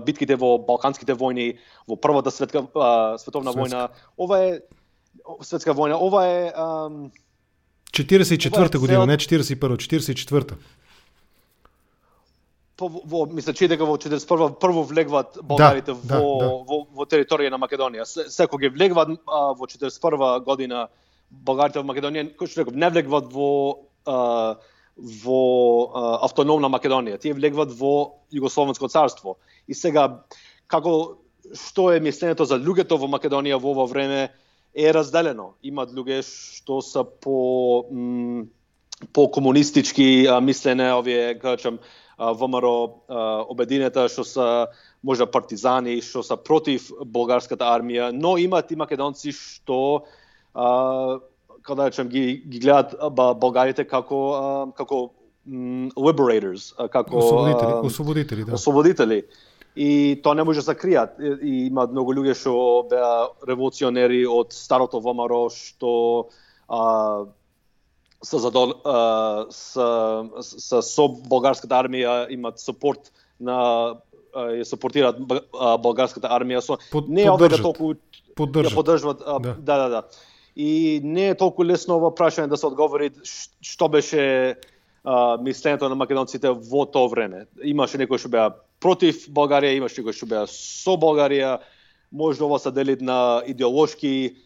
битките во Балканските војни, во Првата световна војна. Ова е светска војна, ова е 44-та година, не 41-та, 44-та. Мисля, че дека во 41 прво влегват болгарите во територија на Македонија. Секој ги влегват во 41 година болгарите во Македонија, кој што реков, не влегват во автономна Македонија. Тие влегват во Југословенско царство. И сега што е мислењето за луѓето во Македонија во ова време е разделено. Имаат луѓе што се по комунистички мислене, овие кажам ВМРО обединета, што се можда партизани, што се против болгарската армија, но имаат и македонци што како да речем ги гледаат болгарите како liberators, како освободители, да. Освободители. И тоа не може да се кријат. И имаат многу луѓе што беа револуционери од старото ВМРО што со болгарската армија имаат супорт ја супортираат болгарската армија не е овде толку поддржуваат. Да. И не е толку лесно ова прашање да се одговори што беше мислењето на македонците во тоа време. Имаше некои што беа против Болгарија, имаше некои што беа со Болгарија. Може ова се дели на идеолошки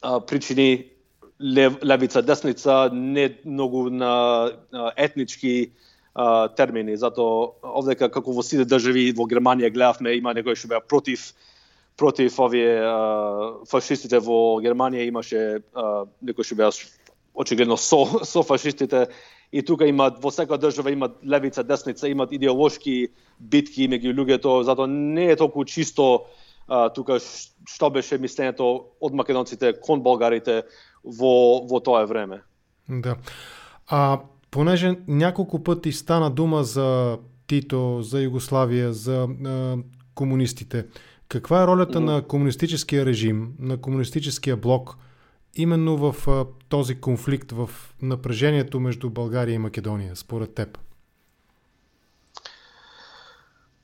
причини, левица, десница, не многу на етнички термини. Затоа овдека како во сите држави во Германија гледавме, има некои што беа против овие фашистите во Германија, имаше некои што беа очигледно со фашистите. И тука имаат, во секоја држава имаат левица, десница, имаат идеолошки битки меѓу луѓето, затоа не е толку чисто тука што беше мислењето од македонците кон болгарите во тоа време. Да. Понеже няколко пъти стана дума за Тито, за Югославия, за комунистите, каква е ролята на комунистическия режим, на комунистическия блок, именно в този конфликт, в напрежението между България и Македония, според теб?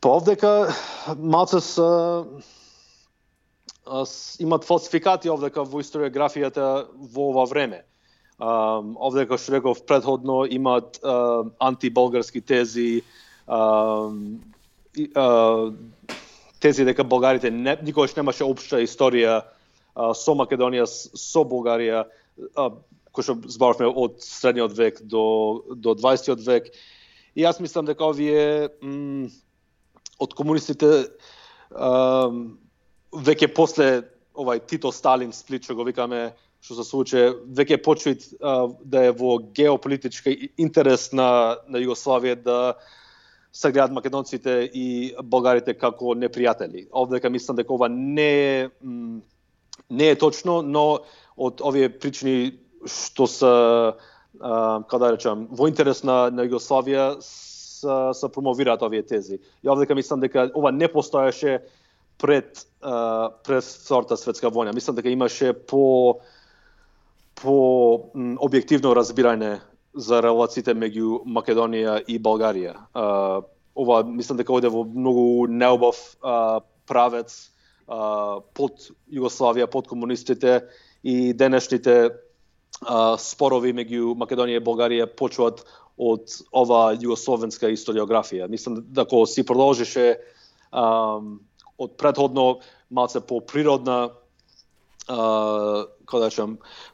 Овдека малце имат фалсификати овдека во историографијата во ова време. Овдека, што реков предходно, имат антиболгарски тези, тези дека болгарите никогаш немаше општа историја со Македонија, со Болгарија, кој што зборавме од средниот век до 20 век. И јас мислам дека овие од комунистите веќе после Тито Сталин сплит, што го викаме, што се случи, веќе почнат да е во геополитички интерес на Југославија да се гледат македонците и болгарите како непријатели. Овдека мислам дека ова не е точно, но од овие причини што се во интерес на Југославија се промовираат овие тези. И овдека мислам дека ова не постоеше пред Втората светска војна. Мислам дека имаше по објективно разбирање за релациите меѓу Македонија и Болгарија. Ова мислам дека оде во многу неубав правец под Југославија, под комунистите, и денешните спорови меѓу Македонија и Болгарија почнуваат од ова југословенска историографија. Мислам дека си продолжише од предходно малце по-природна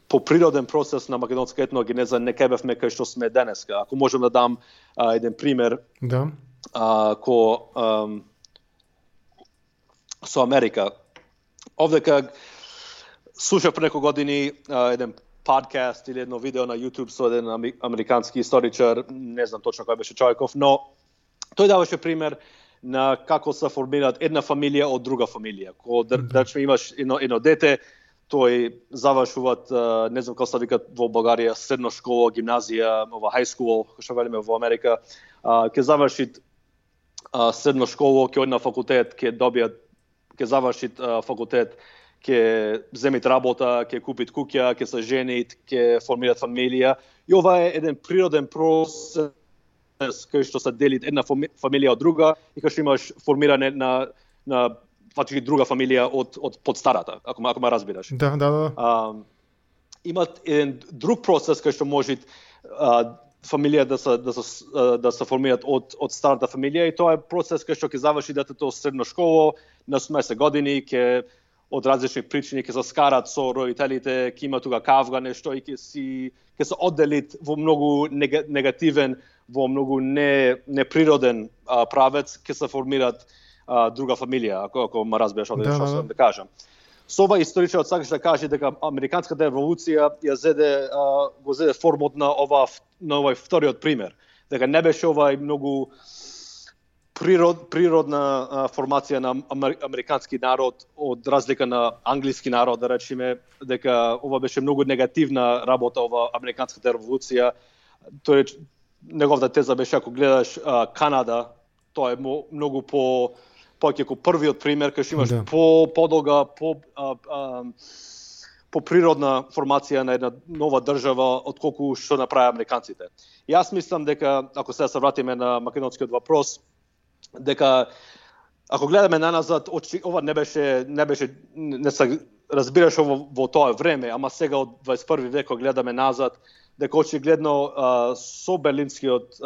по природен процес на македонска етногенеза не бевме кај што сме денеска. Ако можам да дам еден пример, да. Со Америка. Овдека слушав пред неколку години еден подкаст или едно видео на YouTube со еден американски историчар, не знам точно кој беше човеков, но тој даваше пример на како се формираат една фамилија од друга фамилија. Кога имаш едно дете, тој завршуваат, не знам како се викат во Българија, средна школа, гимназија, high school, што велиме во Америка, ќе заврши средна школа, ќе оди на факултет, ќе заврши факултет, ќе земит работа, ќе купит куќа, ќе се женит, ќе формираат фамилија. И ова е еден природен процес кај што се дели една фамилија од друга и кај што имаш формирање на фактички друга фамилија од подстарата, ако ме разбираш. Да. Имат еден друг процес кај што може фамилија да се формираат од старата фамилија, и тоа е процес кај што ќе заврши детето средна школа на 18 години, ќе од различни причини ќе се скарат со родителите, ќе има тука кавга нешто и ќе се одделит во многу негативен, во многу неприроден правец, ќе се формираат друга фамилија, ако ме разбираш што сакам да кажам. Со ова историчарот сакаш да каже дека Американската револуција го зеде формот на овој вториот пример, дека не беше овај многу природна формација на американски народ од разлика на англиски народ, да речеме, дека ова беше многу негативна работа, ова Американската револуција. Тој неговата теза беше, ако гледаш Канада, тоа е многу повеќе како првиот пример, кај што имаш подолга, по природна формација на една нова држава отколку што направи американците. И јас мислам дека, ако сега се вратиме на македонскиот въпрос, дека ако гледаме наназад, ова не се разбираше во тоа време, ама сега од 21 век гледаме назад, дека очигледно со Берлинскиот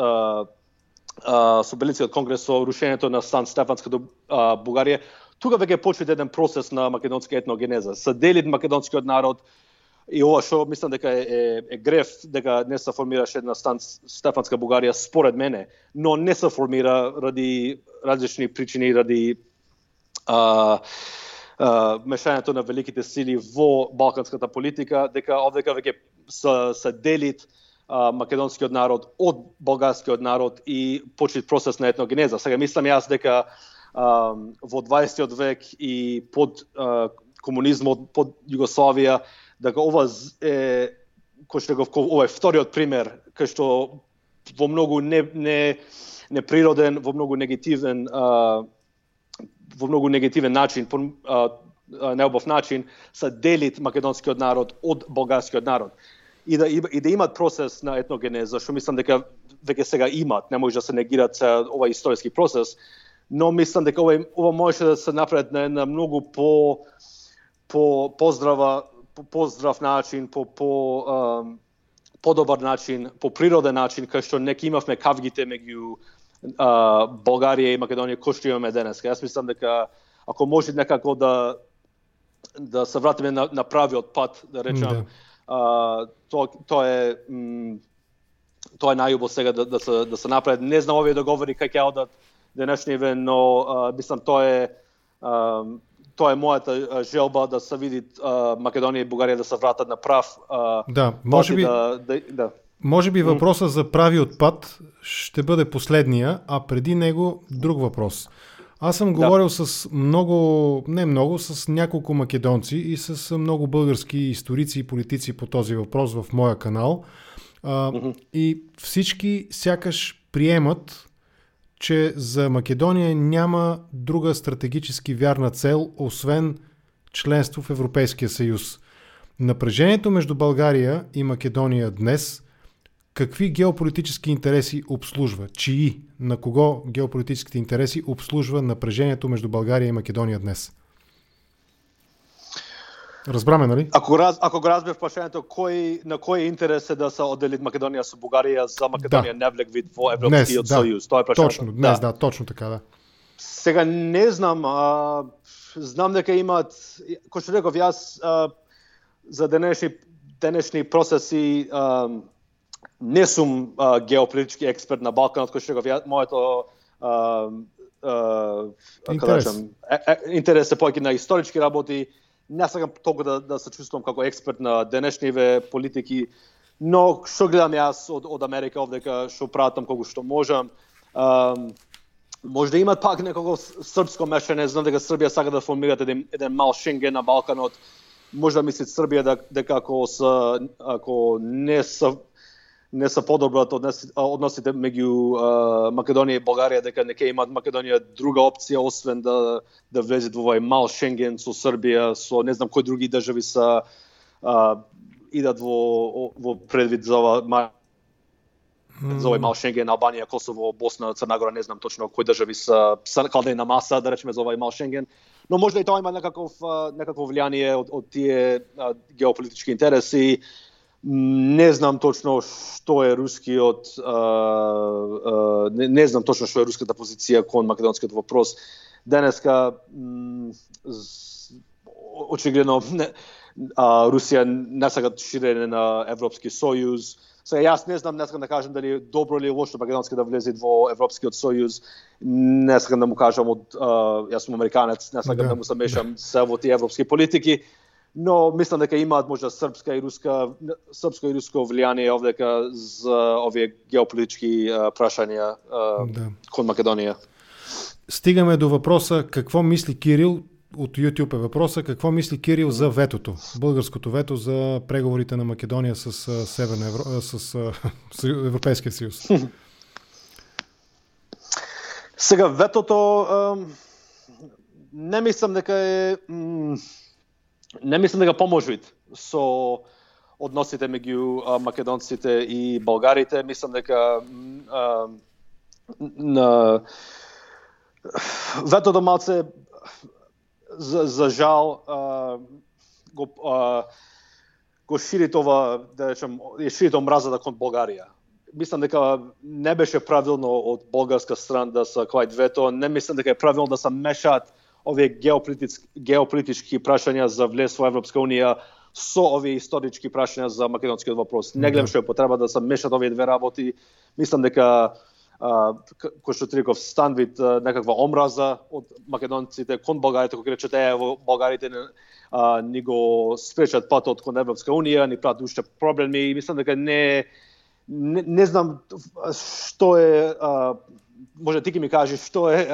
конгрес, со рушењето на Сан Стефанската Бугарија, тука веќе почва еден процес на македонска етногенеза. Се дели македонскиот народ, и ова што мислам дека е греф, дека не се формираше една Сан Стефанска Бугарија, според мене, но не се формира ради различни причини, ради мешањето на великите сили во балканската политика, дека овдека веќе се делит македонскиот народ од болгарскиот народ и почит процес на етногенеза. Сега мислам јас дека во 20 век и под комунизмот, под Југославија, дека ова е ова е вториот пример кај што во многу неприроден, во многу негативен начин, неубав начин, се делит македонскиот народ од болгарскиот народ. И да имат процес на етногенеза, што мислам дека веќе сега имат, не може да се негират овој историски процес, но мислам дека ова може да се направи на една многу поздрав начин, подобар начин, по природен начин, кај што не имавме кавгите меѓу Болгарија и Македонија кој што имаме денес. Јас мислам дека ако може некако да се вратиме на правиот пат, да речам, тоа е најубаво сега да се направи. Не знам овие договори како ќе одат денешниве, но мислам тоа е мојата желба да се види Македонија и Бугарија да се вратат на прав. Може би въпросът за правиот пат ще бъде последния, а преди него друг въпрос. Аз съм говорил с с няколко македонци и с много български историци и политици по този въпрос в моя канал. И всички сякаш приемат, че за Македония няма друга стратегически вярна цел, освен членство в Европейския съюз. Напрежението между България и Македония днес какви геополитически интереси обслужва? Чии? На кого геополитическите интереси обслужва напрежението между България и Македония днес? Разбраме, нали? Ако го разбереш прашањето, на кој интерес е да се оддели Македонија со Бугарија за Македонија не влег вид во Европскиот сојуз? Тоа е прашањето. Точно, днес, точно така, да. Сега не знам, знам дека имаат, кој што реков јас, за денешни процеси не сум геополитички експерт на Балканот, кој што реков јас, моето интерес е повеќе на исторички работи. Не сакам толку да се чувствувам како експерт на денешниве политики, но што гледам јас од Америка овдека, што пратам колку што можам. Може да имат пак некако српско мешање, знам дека Србија сака да формираат еден мал Шенген на Балканот. Може да мислат Србија дека ако не се подобрат односите меѓу Македонија и Болгарија, дека не ќе имат Македонија друга опција освен да влезет во овој мал Шенген со Србија, со не знам кои други држави са идат во предвид за овој мал Шенген, Албанија, Косово, Босна, Црна Гора, не знам точно кои држави са каде на маса, да речеме, за овој мал Шенген. Но може и тоа има некакво влијание од тие геополитички интереси. Не знам точно што е рускиот не знам точно што е руската позиција кон македонскиот вопрос. Денеска очигледно Русија не сака ширење на Европски сојуз. Сега јас не знам, не сакам да кажам дали добро или лошо Македонска да влезе во Европскиот сојуз. Не сакам да му кажам јас сум американец, не сакам да му се мешам се во тие европски политики. Но мислам дека имаат можда српско и руско влијание овдека за овие геополитички прашања кон Македонија. Стигаме до въпроса какво мисли Кирил, от YouTube е въпроса, какво мисли Кирил за ветото, българското вето за преговорите на Македония с Европейския съюз? Сега ветото не мислам дека поможи со односите меѓу македонците и болгарите. Мислам дека ветото малце за жал го шири това, да речем, шири омразата кон Болгарија. Мислам дека не беше правилно од болгарска страна да се квајт вето. Не мислам дека е правилно да се мешаат овие геополитички прашања за влез во Европска унија со овие исторички прашања за македонскиот вопрос. Не гледам што е потреба да се мешат овие две работи. Мислам дека кој што Триков станвид некаква омраза од македонците кон болгарите, кој речете во болгарите ни го спречат патот кон Европска унија, ни прават уште проблеми и мислам дека не знам што е може ти ќе ми кажеш што е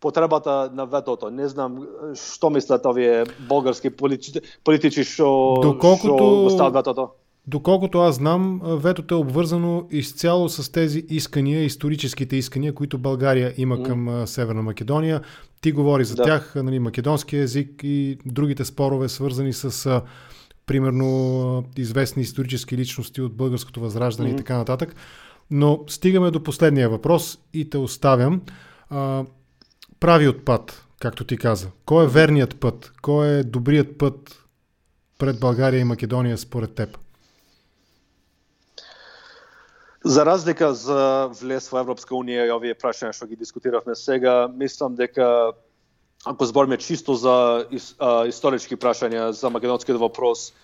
потребата на ветото. Не знам што мислат овие болгарски политичи што стават ветото. Доколкото аз знам, ветото е обвързано изцяло с тези искания, историческите искания, които България има към Северна Македония. Ти говори за тях, нали, македонски език и другите спорове, свързани с примерно известни исторически личности от българското възраждане и така нататък. Но стигаме до последния въпрос и те оставям. Правиот път, както ти каза. Кой е верният път? Кой е добрият път пред България и Македония според теб? За разлика за влез во Европска унија и овие прашања што ги дискутиравме сега, мислам дека ако збориме чисто за исторички прашања за македонскиот вопрос,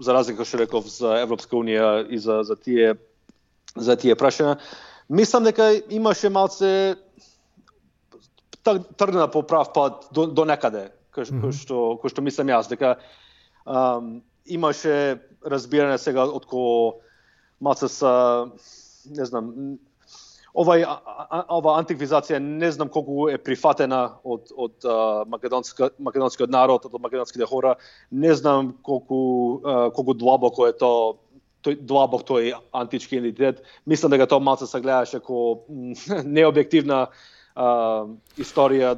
за разлика што реков за Европска унија и за тие прашања, мислам дека имаше малце тргна по прав пат до некаде, кој што мислам јас, дека имаше разбирање сега отколку малце са, не знам, ова антиквизација не знам колку е прифатена од македонскиот народ, од македонските хора, не знам колку длабоко е длабок тој антички идентитет. Мислам дека тоа малце се гледаше како необјективна историја.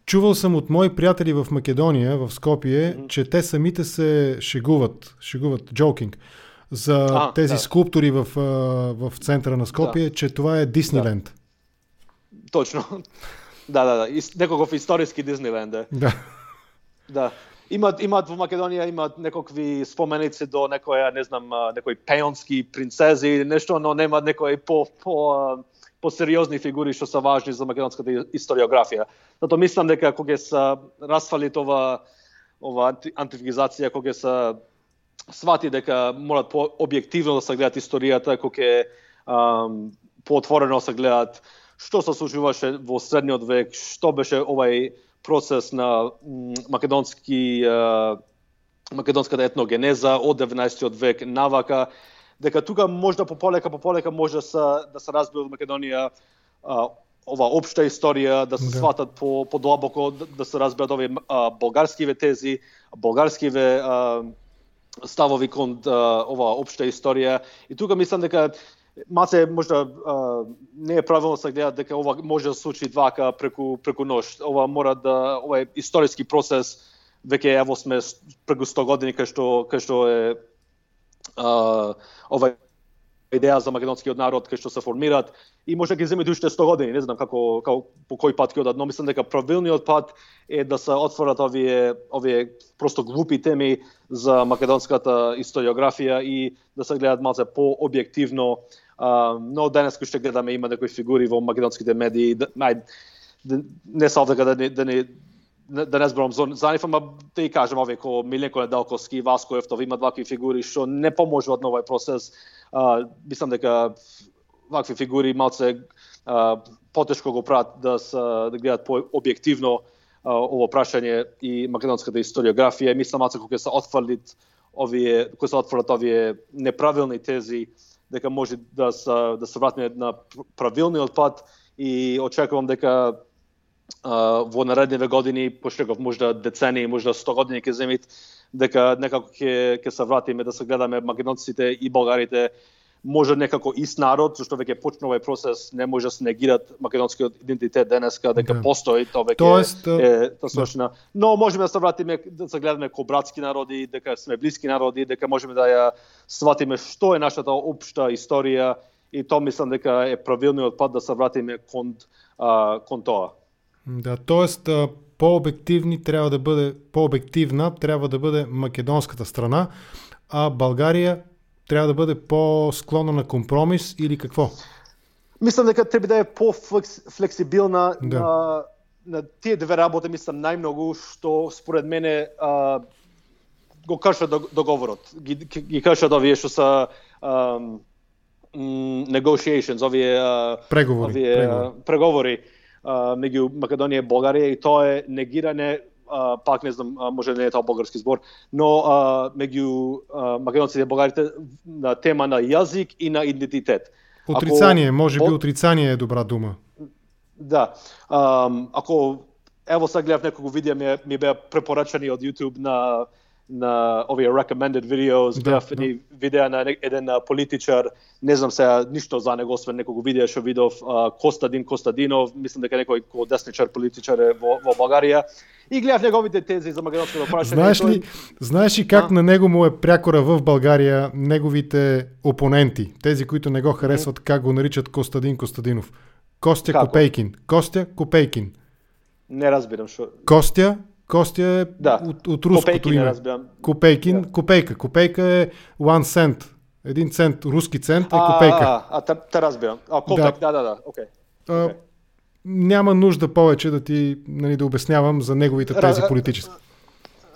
Чувал съм от мои приятели в Македония, в Скопие, че те самите се шегуват, джокинг, за тези скулптури в центъра на Скопие, че това е Дисниленд. Точно. Да. Некаков историски Дисниленд. Да. Имат во Македонија имат некакви споменици до некоја, не знам, некои пеонски принцези или нешто, но нема некои по-сериозни фигури што се важни за македонската историографија. Затоа мислам дека кога се расфали ова антиквизација, кога се свати дека морат по-објективно да се гледат историјата, кога по-отворено се гледат што се случуваше во средниот век, што беше овај процес на македонската етногенеза од 19 век навака, дека тука можда пополека може да се разбие од Македонија ова општа историја, да се сватат по-длабоко, да се разберат овие болгарскиве тези, болгарскиве ставови кон ова општа историја. И тука мислам дека маце можда не е правилно се гледа дека ова може да се случи вака преку нощ. Ова е историски процес, веќе ево сме преку 100 години кај што е ова идеја за македонскиот народ кај што се формираат и може да ги земе уште 100 години, не знам како по кој пат ќе одат, но мислам дека правилниот пат е да се отворат овие просто глупи теми за македонската историографија и да се гледат малце по-објективно. Но денес кој што гледаме има некои фигури во македонските медии, не са овде да не зборам за нив, ама да и кажем овие ко Миленко Неделковски, Васко Ефтов, имат вакви фигури што не поможуваат на овој процес. Мислам дека вакви фигури малце потешко го прават да гледат по-објективно ово прашање и македонската историографија. Мислам малце кога се отфрлат овие неправилни тези, дека може да се вратиме на правилниот пат и очекувам дека во наредниве години, пошто можда децении, можда 100 години ќе земит, дека некако ќе се вратиме да се гледаме македонците и болгарите може некако ист народ, зашто веќе почна овој процес, не може да се негират македонскиот идентитет денеска, дека постои, тоа веќе е свршена. Но можеме да се вратиме да се гледаме ко братски народи, дека сме блиски народи, дека можеме да ја сватиме што е нашата општа историја и тоа мислам дека е правилниот пат да се вратиме кон тоа. Да, тоест по-обективна трябва да бъде македонската страна, а България трябва да бъде по-склонна на компромис или какво? Мислам дека треба да е по-флексибилна на тие две работи, мислам најмногу што според мене го кршат договорот. Ги кршат овие што са negotiations, овие преговори меѓу Македонија и Болгарија и тоа е негирање, пак не знам, може не е тоа болгарски збор, но меѓу македонците и болгарите на тема на јазик и на идентитет. Отрицание, може би отрицание е добра дума. Да. Ако ево сега гледав неколку видеа ми беа препорачани од YouTube на овие recommended videos, беав едни видеа на еден политичар, не знам сега ништо за него, освен неколку видеа што видов, Костадин Костадинов, мислам дека некој десничар политичар е во Българија, и гледав неговите тези за македонското прашање. Знаеш ли как на него му е прякора в Българија неговите опоненти, тези които не го харесват, как го наричат Костадин Костадинов? Костя Копейкин. Костя Копейкин. Не разбирам што. Костя е от руското име. Копейкин, копейка. Копейка е 1 цент. 1 цент, руски цент е копейка. Те разбирам. Копек, да, окей. Няма нужда повече да ти да обяснявам за неговите тези политически.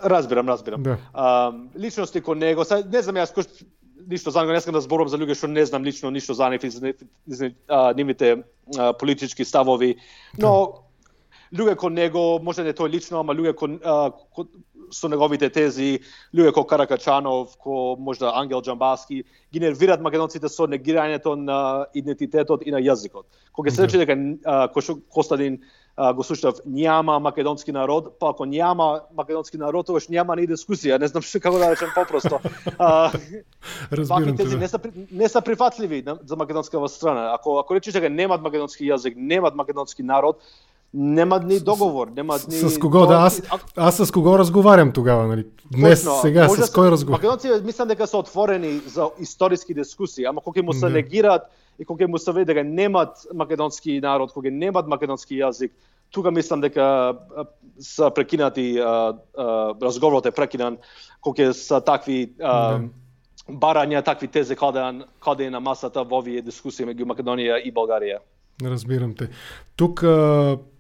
Разбирам. Да. Личности кон него, не знам јас ништо за него, не искам да зборувам за луѓе што не знам лично ништо за нив и за нивните политички ставови, но луѓе кон него, може не тој лично, ама луѓе со неговите тези, луѓе ко Каракачанов, ко можда Ангел Џамбаски, ги нервираат македонците со негирањето на идентитетот и на јазикот. Кога се рече дека Костадин го слушав, няма македонски народ, па ако няма македонски народ, тогаш няма ни дискусија. Не знам како да речем попросто. Разбирам тези не се прифатливи за македонската страна. Ако речеш дека немат македонски јазик, немат македонски народ, нема ни договор, нема ни... С кого да? Аз с кого разговарям тогава, нали? Днес, точно, сега, с кој разговарям? Македонци мислам дека се отворени за историски дискусии, ама кога му се негираат и кога му се веде дека немат македонски народ, кога немат македонски јазик, тука мислам дека се прекинати, разговорот е прекинан, кога се такви барања, такви тези каде е на масата во овие дискусии меѓу Македонија и Българија. Разбирам те. Тук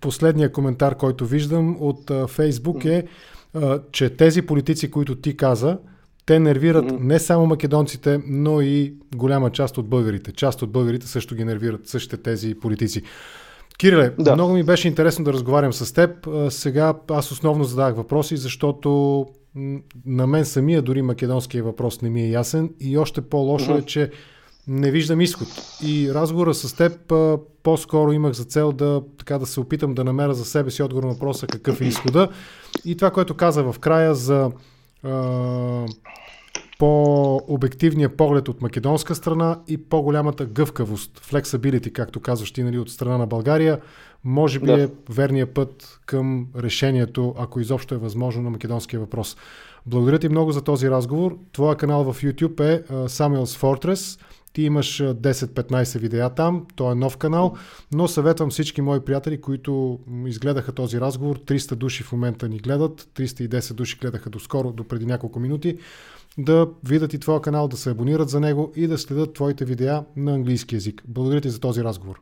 последният коментар, който виждам от Фейсбук е, че тези политици, които ти каза, те нервират не само македонците, но и голяма част от българите. Част от българите също ги нервират същите тези политици. Кириле, много ми беше интересно да разговарям с теб. Сега аз основно задавах въпроси, защото на мен самия дори македонския въпрос не ми е ясен и още по-лошо е, че не виждам изход. И разговора с теб по-скоро имах за цел да се опитам да намеря за себе си отговор на въпроса какъв е изхода. И това, което каза в края за по-обективния поглед от македонска страна и по-голямата гъвкавост, flexibility, както казваш ти, нали, от страна на България, може би е верният път към решението, ако изобщо е възможно, на македонския въпрос. Благодаря ти много за този разговор. Твоя канал в YouTube е Samuel's Fortress. Ти имаш 10-15 видеа там, то е нов канал, но съветвам всички мои приятели, които изгледаха този разговор, 300 души в момента ни гледат, 310 души гледаха доскоро, до преди няколко минути, да видят и твоя канал, да се абонират за него и да следят твоите видеа на английски език. Благодаря ти за този разговор.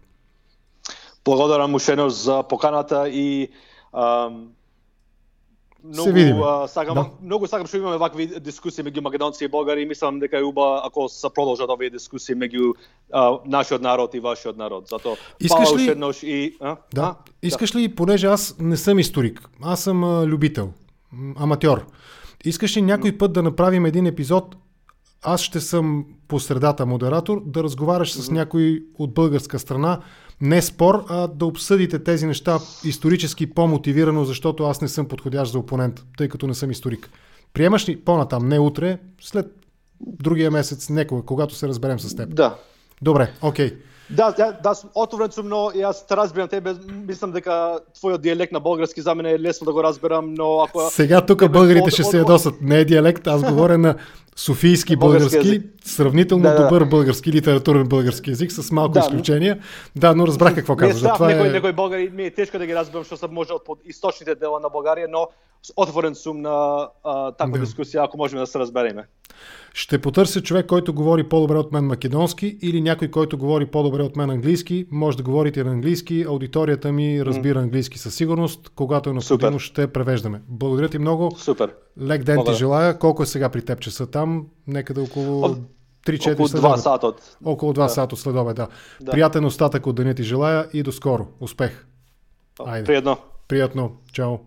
Благодарам ушено за поканата и Многу сакам што имаме вакви дискусии меѓу македонци и българи и мислам дека е уба ако се продолжат овие дискусии меѓу нашиот народ и вашиот народ. Затоа Искаш ли, понеже аз не съм историк, аз съм любител, аматьор. Искаш ли някой път да направим един епизод, аз ще съм по средата модератор, да разговаряш с някой от българска страна, не спор, а да обсъдите тези неща исторически по-мотивирано, защото аз не съм подходящ за опонент, тъй като не съм историк. Приемаш ли по-натам, не утре, след другия месец, некога, когато се разберем с теб? Да. Добре, окей. Да, отворен сум, но јас те разбирам тебе, мислам дека твојот дијалект на български за мене е лесно да го разберам, но ако... Сега тук българите ще се ядосат, не е диалект, аз говоря на софийски български, сравнително добър български, литературен български език, с малко изключения. Да, но разбрах какво казваш. Некои българи ми е тешко да ги разберам, што се може од источните дела на Българија, но отворен сум на таква дискусија, ако можеме да се разбереме. Ще потърся човек, който говори по-добре от мен македонски или някой, който говори по-добре от мен английски. Може да говорите на английски, аудиторията ми разбира английски със сигурност. Когато е необходимо, ще превеждаме. Благодаря ти много. Супер. Лек ден ти желая. Колко е сега при теб часа там? Некъде около 3-4 около 2 сата. Около 2 сата следобед, да. Приятен остатък от деня ти желая и до скоро. Успех. Приятно. Приятно. Чао.